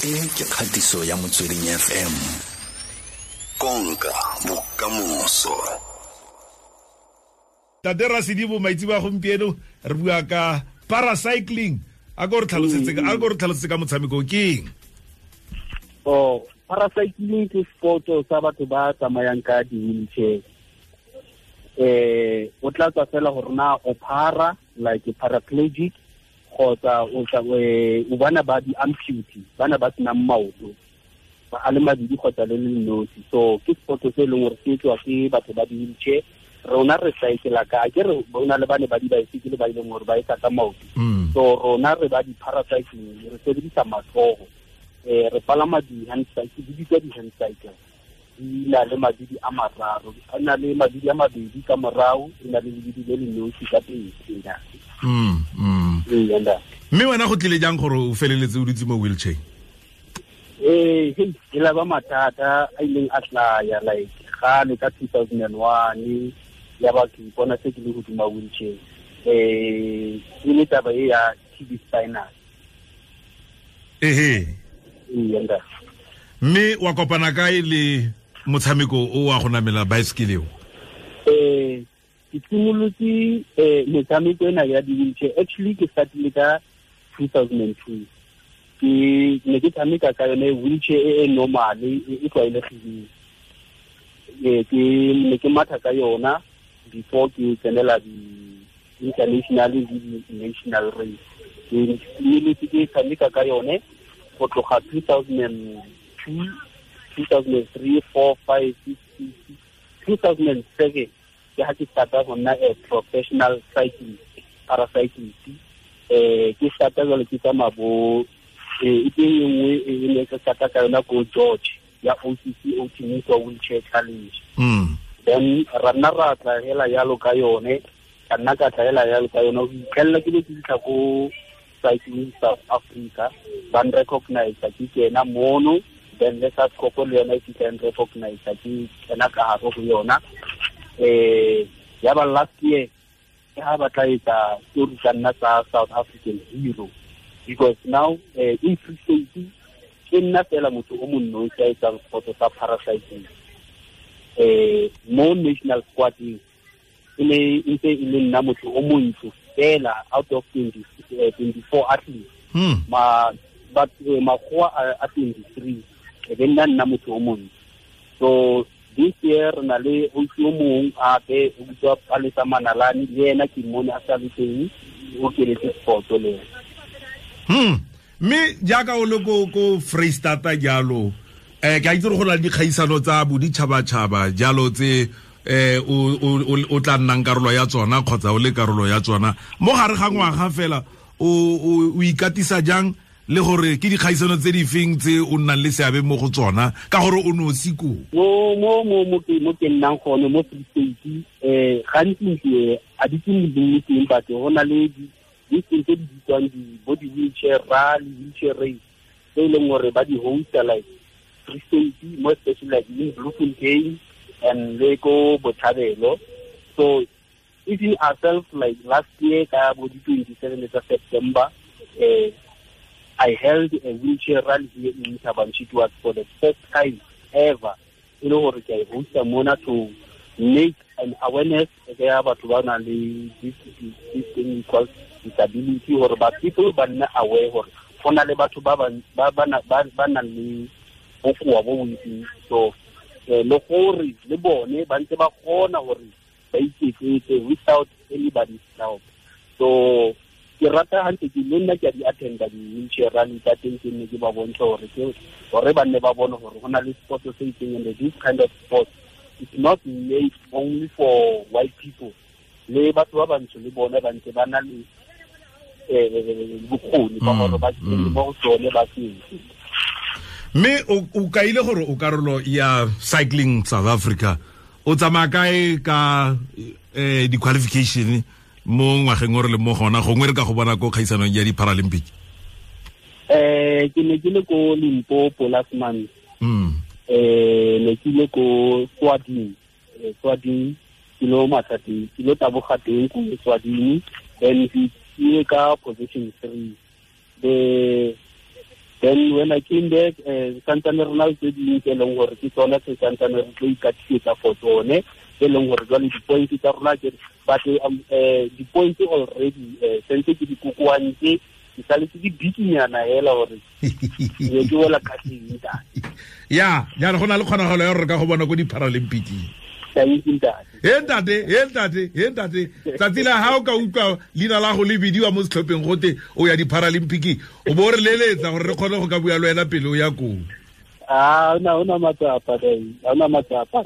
E ke kgatiso ya Motsweding FM. Konka bokamoso. Tate Rasedibo, maitse ba gompieno re bua ka paracycling. A ko re tlhalosetse ka, a ko re tlhalosetse ka motshameko ke eng? Oh, paracycling ke sport sa batho ba tsamayang ka di-wheelchair. O tla tswa fela gore na o para, like paraplegic, kgotsa o tla, o bana ba di-amputee, bana ba senang maoto, ba a le mabedi kgotsa le le nosi. So ke sport se e leng gore se etswa ke batho ba di-wheelchair. Rona re cycla ka, ke re bona le bane ba di-bicycle ba e leng gore ba etsa ka maoto. So rona re ba di-paracycling, re sebedisa matsogo. Re palama di-hand cycle, di bitswa di-hand cycle. Di na le mabidi a mararo, a na le mabidi a mabedi ka morao, e na le lebidi le le nosi ka pele. Ee, ntate. Mme wena go tlile jang gore o feleletse o dutse mo wheelchair? Ee, hei, e la ba mathata a ileng a tlaya, like gale ka 2001, ya ba ke ipona se ke le hodima wheelchair. E le taba e ya TB spinal. Ehe. Ee, ntate. Mme wa kopana kae le motshameko o wa go namela bicycle eo? Ke simolotse, metshameko ena ya di-wheelchair. Actually, ke startile ka 2002. Ke ne ke tshameka ka yone wheelchair e e normal, e tlwaelegileng. Ke ne ke matha ka yona before ke tsenela di-international le di-national race. Ke simolotse ke tshameka ka yone go tloga 2002, 2003, 4, 5, 6, 6, 2007. Ke ha ke starta go nna a professional cyclist, paracyclist. Ke starta jwale ke tsamaya bo, e teng e nngwe e ne ke starta ka yona ko George ya OCC Outeniqua Wheelchair Challenge. Then ra nna ra tla hela jalo ka yone, ka nna ka tla hela jalo ka yone, ho itlhella ke be ke fitlha ko Cycling South Africa, ba n-recognize ke kena mono, then le sa Scopo le yona e fitlha e n-recognize ke kena ka hare ho yona. Ya ba last year ke ha ba tla etsa story tsa nna tsa South African hero, because now, in Free State ke nna fela motho o monnosi a etsang sport sa paracycling. Mo national squad-eng e ne e ntse e le nna motho o montsho fela out of 24 athletes. Ma, but, makgowa a 23, e be nna nna motho o montsho. So this year re na le ausi o mong hape o bitswa Palesa Manalane, le ena ke mmone a sa le teng, o kenetse sport le ena. Mme jaaka o le ko Freistata jalo, ke a itse gore go na le dikgaisano tsa boditšhabatšhaba jalo tse, o tla nnang karolo ya tsona kgotsa o le karolo ya tsona. Mo gare ga ngwaga fela, o ikatisa jang le gore ke dikgaisano tse di feng tse o nnang le seabe mo go tsona ka gore o nosi koo? Mo ke nnang gone mo Free State, gantsi ntse a di ke mo teng, but go na le di tse di bitswang di bo di wheelchair rally, wheelchair race, tse e leng gore ba di hosta like Free State, more especially like in Bloemfontein and le ko Botshabelo. So even ourselves, like last year ka bo di 27 tsa September, I held a wheelchair rally here in Thaba Nchu. It was for the first time ever. E le gore ke a e hosta mona to make an awareness ya batho ba nang le this thing called disability, gore ba people ba nne aware gore go na le batho ba ba nang le bokoa bo bontsi. So, le gore le bone ba ntse ba kgona gore ba iketsetse without anybody's help. So ke rata hantle ke le nna ke a di attenda di-wheelchair rally tsa teng, ke nne ke ba bontsha gore ke gore ba nne ba bone gore go na le sport se itseng, and this kind of sport is not made only for white people. Le batho ba bantsho le bone ba ntse ba na le, bokgoni ba gore ba kene mo go tsone ba se. Mme o kaile gore o karolo ya Cycling South Africa, o tsamaya kae ka, di-qualification mo ngwageng o re le mo gona, gongwe re ka go bona ko kgaisanong ya di-Paralympic? Ke ne ke le ko Limpopo last month. Ne ke ile ko Swading. Swading, ke lo matha teng, ke lo taboga teng ko Swading, then ke ile ka position 3. The Then when I came back, santsane re na le tse dingwe tse e leng gore ke tsona tse santsane re tlo ikatisetsa for tsone, tse e leng gore jwale di-points tsa rona ke, but di-points already sentse ke di kokoantse, ke saletse ke bikinyana hela gore ke wela kgatlheng, ntate. Ya, jaanong go na le kgonagalo ya gore re ka go bona ko di-Paralympic-ing. Ntate. He ntate, he ntate, he ntate, tsatsi la ga o ka utlwa leina la go le bidiwa mo setlhopheng gote o ya di-Paralympic, o bo o re leletsa gore re kgone go ka bua le wena pele o ya koo. A ona matsapa, ona matsapa.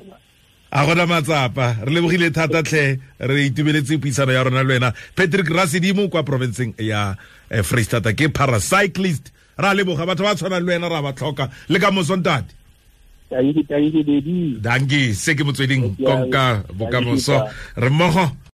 A gona matsapa. Re lebogile thata tlhe, re itumeletse puisano ya rona le wena, Patrick Rasedimo kwa provinceng ya Freistata, ke paracyclist. Ra leboga, batho ba tshwanang le wena ra ba tlhoka le ka moso, ntate. Dankie, dankie, baby. Dankie. Se ke Motsweding, konka bokamoso, re mmogo.